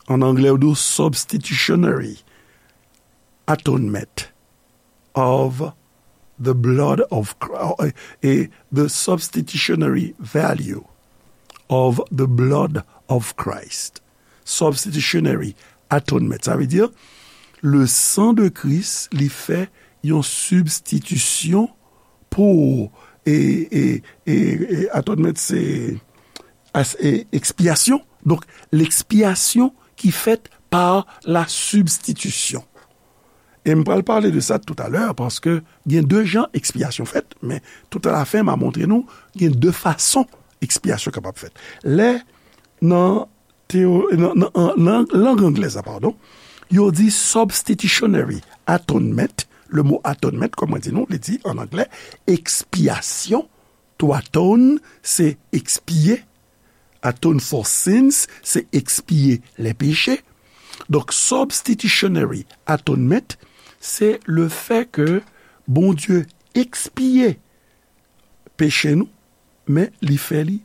An anglè, yo di substitutionary atonement of the blood of Christ, e the substitutionary value of the blood of Christ. Substitutionary atonement, sa vle di le sang de Christ, li fè yon sibstitisyon pou, e, e, e, e atonement se as-, e, ekspyasyon. Donk, lekspyasyon ki fèt pa la substitution. E m pral pale de sa toutalè, paske gen de jan ekspyasyon fèt, men tout a la fen, m a montre nou, gen de fason ekspyasyon kapab fèt. Lè nan teo-, nan, nan, an, nan lang anglè sa, padon, yo di substitutionary atonement. Le mot atonement, kòm mwen di nou, li di an anglè ekspyasyon. To atone, se ekspye. Atone for sins, se ekspye les péchés. Donk, substitutionary atonement, se le fè ke Bondye ekspye peche nou, men li fè li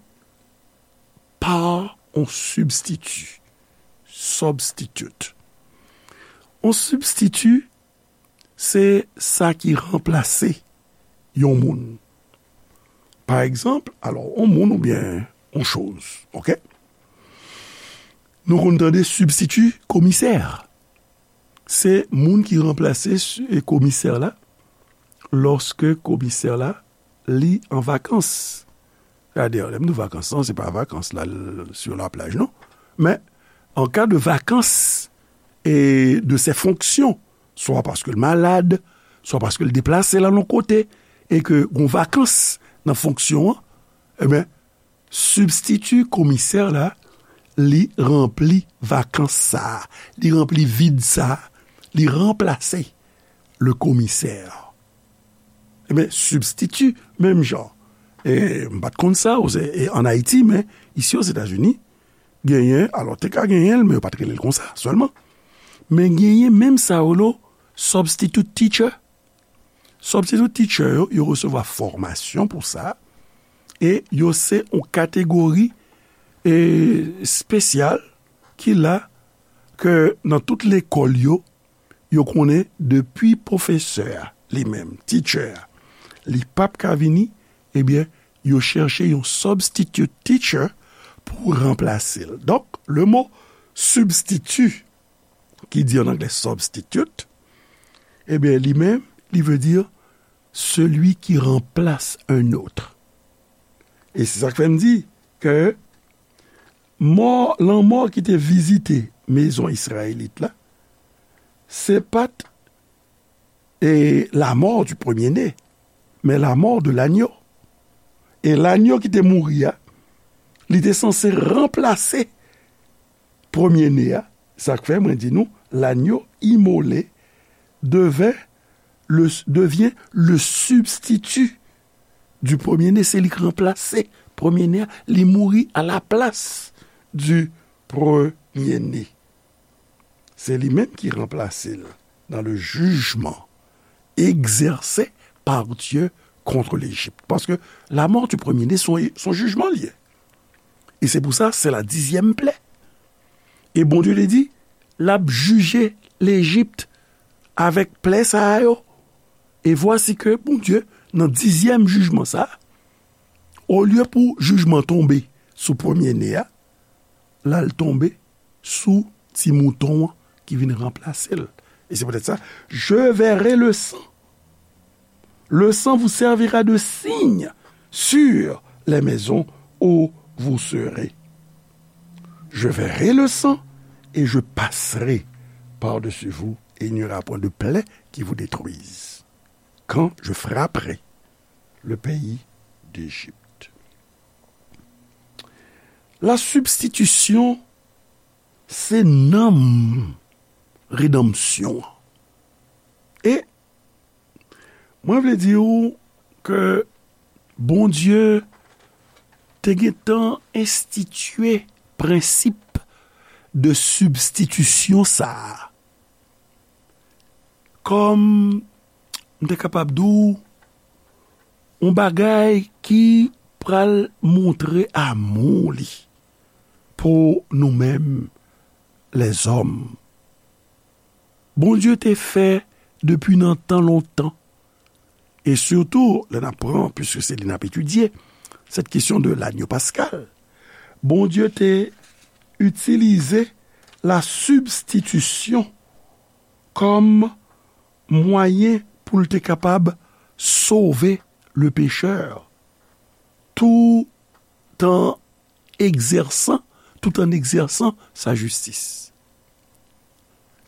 pa on sibstiti, substitute. On sibstiti, se sa ki ranplase yon moun. Pa egzanp, alò, on moun oubyen on choz, oke? Nou konn tande sibstiti komisè. Se moun ki ranplase si-, komisè la, lòske komisè la, li an vakans. Sètadi, lè m di vakans lan, se pa vakans la, l-, sur la plage, non. Men, an ka de vakans e de ses fonctions, swa paske l malad, swa paske l deplase l al yon kote, e ke gon vakans nan fonksyon an, ebyen, sibstiti komisè la, li ranpli vakans sa a, li ranpli vid sa a, li ranplase le komisè. Ebyen, sibstiti, menm jan. E m pa t konn sa, o, e, ann Ayiti, men isi Ozetazini, genyen, alò, te ka genyen l, men yo pa t rele l konsa sèlman. Men genyen menm sa yo rele substitute teacher. Substitute teacher yo, yo resevwa fòmasyon pou sa, e yo se yon kategori, e, espesyal ki la ke nan tout lekòl yo, yo konnen depi pwofesè a, li menm, teacher a, li p ap ka vini, ebyen, yo chèche yon substitute teacher pou ranplase l. Donk, le mo substitut, ki di an anglè substitute, ebyen, li menm, li vle di celui qui remplace un autre. E se sa k fè m di ke mò, lanmò ki te vizite mezon Izrayelit la, se pa t, e, la mort du premier-né, men la mort de l'agneau. E lagno ki te mouri a, li te sanse ranplase premye ne a. Sa k fè mwen di nou, l'agneau immolé devint le, devient le substitut du premier-né, se li k ranplase premye ne a, li mouri à la place du premier-né. Se li menm ki ranplase l dans le jugement exercé par Dieu contre l'Égypte. Paske la mort du premier-né, se yon, se yon jijman li ye. E se pou sa, se la dizyèm plè. E Bondye te di, l ap jije Lejip avèk plè sa a yo. E vwasi ke Bondye, nan dizyèm jijman sa a, olye pou jijman tonbe sou premye ne a, l al tonbe sou ti mouton an ki vin ranplase l. E se poutèt sa, je verrai le sang. Le sang vous servira de signe sur les maisons où vous serez. Je verrai le sang et je passerai par-dessus vous, et il n'y aura point de plaie qui vous détruise, quand je frapperai le pays d'Égypte. La substitution, se nanm redanmsyon an. E mwen vle di w ke Bondye te gentan enstitye prensip de sibstitisyon sa a. Kòm m te kapab di w, yon bagay ki pral montre amou li pou nou menm lèzòm. Bondye te fè depi nan tan lontan, e sitou lè n ap pran, piske se li n ap etidye, sèt kesyon de lagno paskal, Bondye te itilize la sibstitisyon kòm mwayen pou l te kapab sove le pechè, tout an egzèsan, tout an egzèsan sa jistis.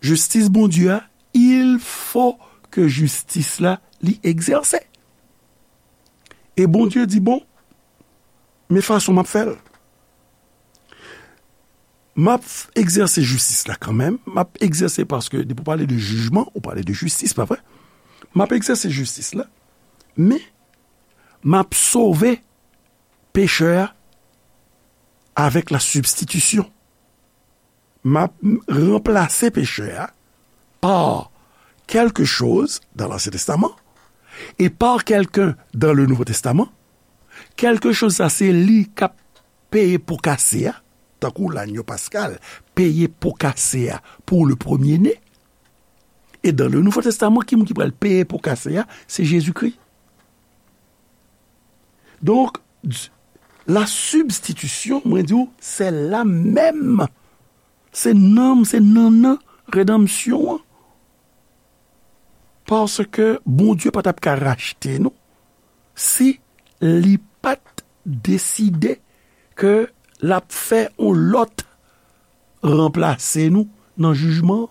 Jistis Bondye a, il fo ke jistis la li egzèse. E Bondye di, bon, men fason m ap fè l. M ap egzèse jistis la kanmenm, m ap egzèse paske depi w pale de jijman, ou pale de jistis, pa vre? M ap egzèse jistis la, men m ap sove pechè a avèk la sibstitisyon. M ap ranplase pechè a par quelque chose dans l'Ancien Testament et par quelqu'un dans le Nouveau Testament. Quelque chose sa, se li k ap peye po kase a, tankou lagno paskal peye po kase a pou le premier-né. E dans le Nouveau Testament, ki moun ki pral peye po kase a? Se Jezikri. Donk, la sibstitisyon, mwen di w, se la menm. Se nanm, se nannan redanmsyon an. Paske Bondye pa t ap ka rachte nou si li pa t deside ke l ap fè yon lòt ranplase nou nan jijman an.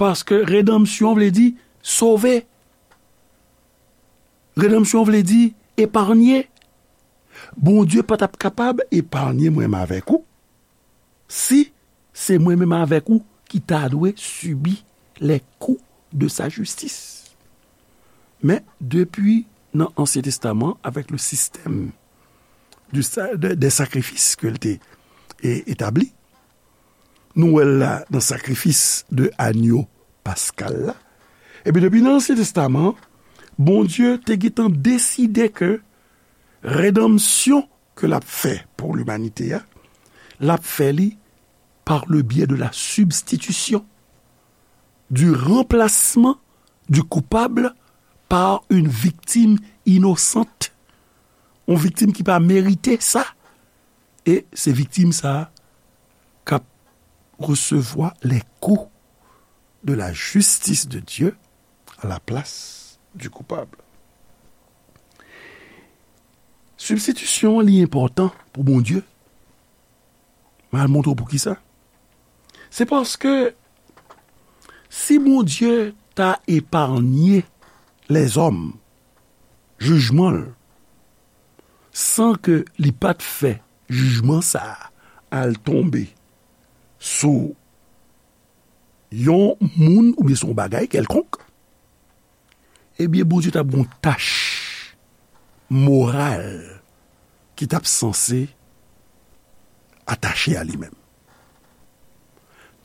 Paske redanmsyon vle di sove. Redanmsyon vle di epanye. Bondye pa t ap kapab epanye mwen menm avèk ou si se mwen menm avèk ou ki ta dwe sibi les coups de sa justice. Men, depi nan Ansyen Testaman, avèk le système du sa-, de, des sacrifices ke l te e, etabli, nou wè l la nan sakrifis de anyo paskal la. Ebyen, depi nan Ansyen Testaman, Bondye te gentan deside ke redanmsyon ke l ap fè pou limanite a, l ap fè li par le biais de la substitution, du remplacement du coupable par une victime innocente. Yon viktim ki pa merite sa. E se viktim sa a k ap resevwa les coups de la justice de Dieu à la place du coupable. Sibstitisyon an, li enpòtan pou Bondye. Mwen al montre w poukisa. Se paske si Bondye ta eparnye lèzòm jijman l, san ke li pa t fè jijman sa a al tonbe sou yon moun oubyen sou yon bagay kèlkonk, ebyen, Bondye t ap gen yon tach moral ki t ap sanse atache a li menm.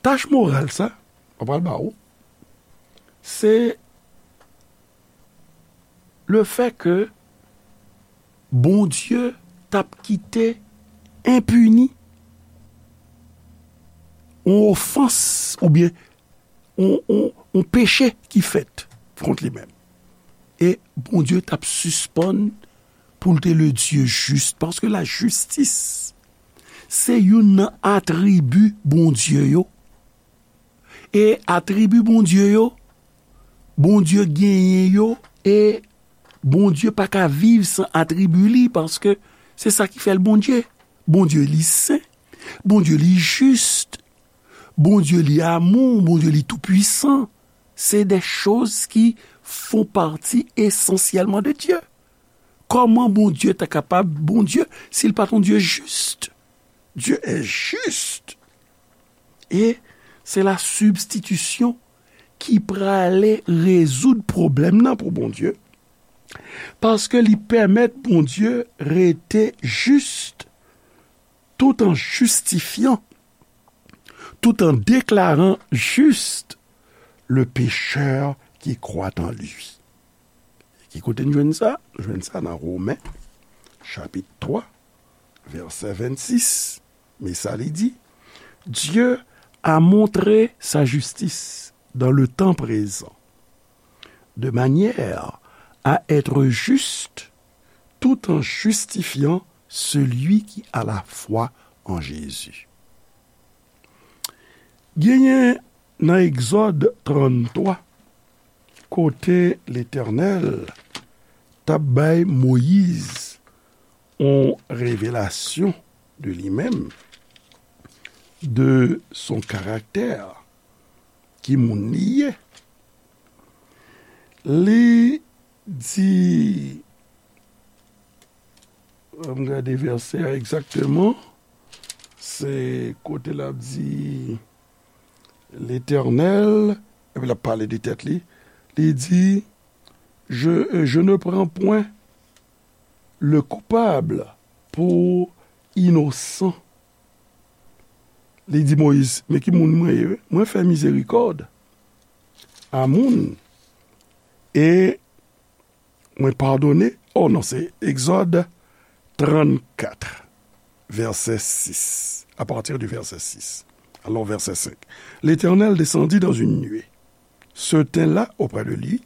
Tach moral sa, mwen pral ba ou, se le fè ke Bondye t ap kite enpini yon ofans oubyen yon, yon, yon peche ki fèt kont li menm. E Bondye t ap sispann pou l te le Dye jis, paske lajistis se youn nan atribi Bondye yo. E atribi Bondye yo, Bondye genyen yo, e Bondye pa ka viv san atribi li, paske se sa ki fè l Bondye. Bondye li sen, Bondye li jis, Bondye li amou, Bondye li toupwisan. Se de choz ki font partie essentiellement de Dieu. Kòman Bondye ta kapab Bondye si l pa t yon Dye jis? Dieu est juste. E se la sibstitisyon ki prale rezoud pwoblèm nan pou Bondye, paske li pèmèt Bondye rete jis tout en justifiant, tout en déclarant juste le pécheur qui croit en lui. Ki kote n jwenn sa? Nou jwenn sa nan Women, chapit twa, vèsè vennsis. Men sa li di, Dieu a montré sa justice dans le temps présent, de manière à être juste tout en justifiant celui qui a la foi en Jésus. Genyen nan Egzòd tranntwa, kote Letènèl t ap bay Moyiz yon revelasyon de li menm, de son karaktè, ki moun li ye. Li di, ann gade vèsè a egzakteman, se kote l ap di, Letènèl, epi l ap pale de tèt li, li di, je, je ne prends point le coupable pour innocent. Li di Moyiz, men ki moun mwen ye? Mwen fè mizerikòd a moun, e mwen padone. Oh non, se Egzòd trannkat, vèsè sis. À partir du verset six. Alors, verset cinq. L'Éternel descendit dans une nuée, se tint là auprès de lui,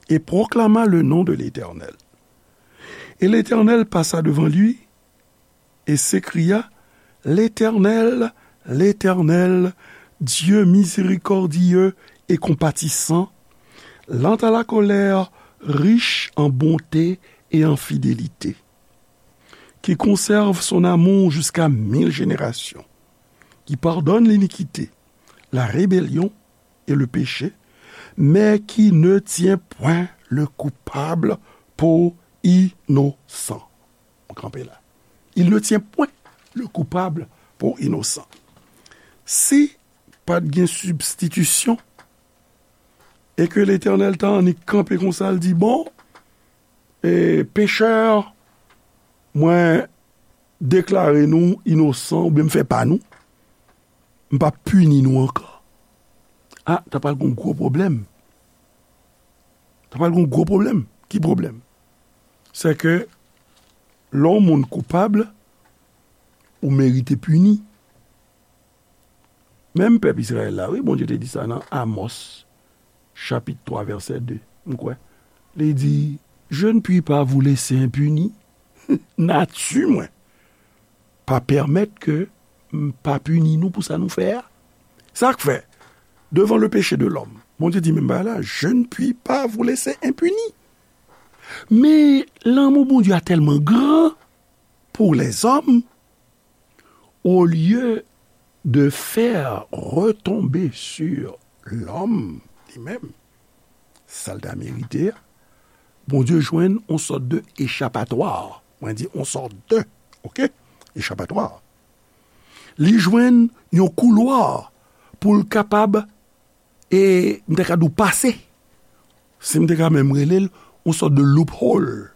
et proclama le nom de l'Éternel. Et l'Éternel passa devant lui et s'écria, L'Éternel, l'Éternel, Dieu miséricordieux et compatissant, lent à la colère, riche en bonté et en fidélité, qui conserve son amour jusqu'à mille générations, qui pardonne l'iniquité, la rébellion et le péché, mais qui ne tient point le coupable pour innocent. Mwen kanpe la. Il ne tient point le coupable pour innocent. Si pa t gen sibstitisyon, e ke Letènèl ta annik kanpe konsa, l di, bon, e, pechè, mwen deklare nou inosan, oubyen m fè pa nou, m p ap pini nou ankò. A, ta pral gen yon gwo pwoblèm. Ta pral gen yon gwo pwoblèm. Ki pwoblèm? Se ke lè yon moun koupab, ou merite pini. Menm pèp Izrayèl la, wi, Bondye te di sa nan Amòs, chapit twa, vèsè de, m kwè. Li di, Je ne puis pas vous laisser impunis. Nati mwen pa pèmèt ke m pa pini nou pou sa nou fè a. Sa k fè, devant le péché de l'homme, Bondye di menm bagay la, Je ne puis pas vous laisser impunis. Men lanmou Bondye a tèlman gran pour les hommes, au lieu de faire retomber sur l'homme li menm, sa l ta merite a, Bondye jwenn yon sòt de echapatwa. Mwen di yon sòt de, oke? Echapatwa. Li jwenn yon koulwa pou l kapab, e m te ka di w pase. Si m te ka menm rele l yon sòt de loophole.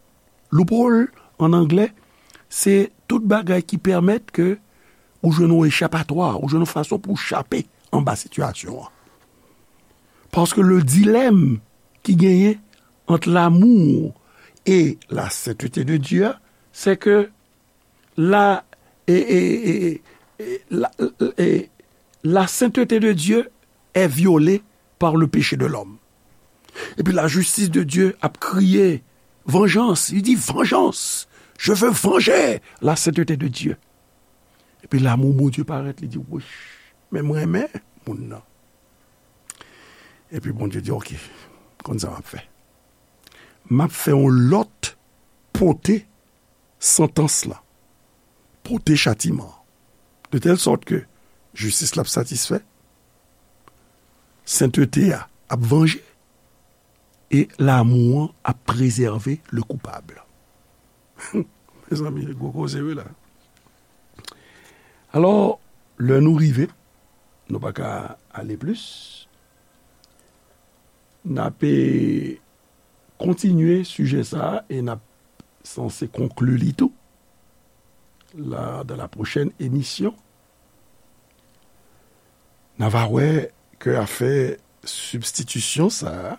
Loophole, an anglè, se tout bagay ki pèmèt ke ou jwenn yon echapatwa, ou jwenn yon fason pou w chape anba sitiyasyon an. Paske le dilèm ki genyen ant l'amour et la sainteté de Dieu, se ke la, e, e, e, e, la, e, la sainteté de Dieu est violée par le péché de l'homme. Epi la justice de Dieu ap kriye, Vengeance, li di, Vengeance, je veux venger la sainteté de Dieu. Epi lanmou Bondye parèt, li di, Wouch, men m renmen moun nan. Epi Bondye di, Oke, konn sa m ap fè. M ap fè yon lòt pote santans la, pote chatiman an, de tèl sòt ke jistis la ap satisfè, sentete a ap vanje, e lanmou an ap prezève le koupab. Mezanmi, se gwo koze wi la. Alò, lè nou rive, nou pa ka ale plis. N ape kontinye sijè sa a e n ap sanse konkli li tou la, dans la prochaine émission. N a va wè ke afè sibstitisyon sa a,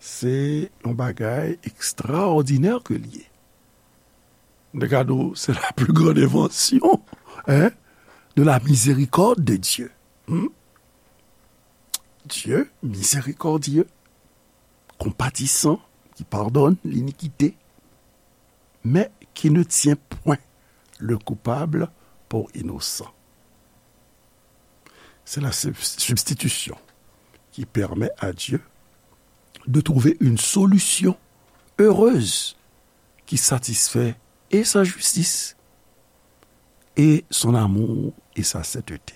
se yon bagay ekstraòdinè ke l ye. M te ka di w, c'est la plus grande invention, hein, de la miséricorde de Dieu. Hmm? Dieu miséricordieux, compatissant, qui pardonne l'iniquité, mais qui ne tient point le coupable pour innocent. C'est la sub-, substitution qui permet à Dieu de trouver une solution heureuse qui satisfait et sa justice, et son amour et sa sainteté.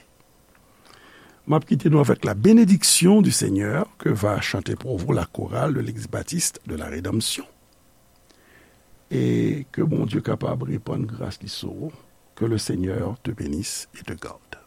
M ap kite nou avèk la bénédiction du Seigneur que va chanter pour vous la chorale de l'Eglise Baptiste de la Rédemption. E ke Bondye kapab repann gras li sou ou. Que le Seigneur te bénisse et te garde.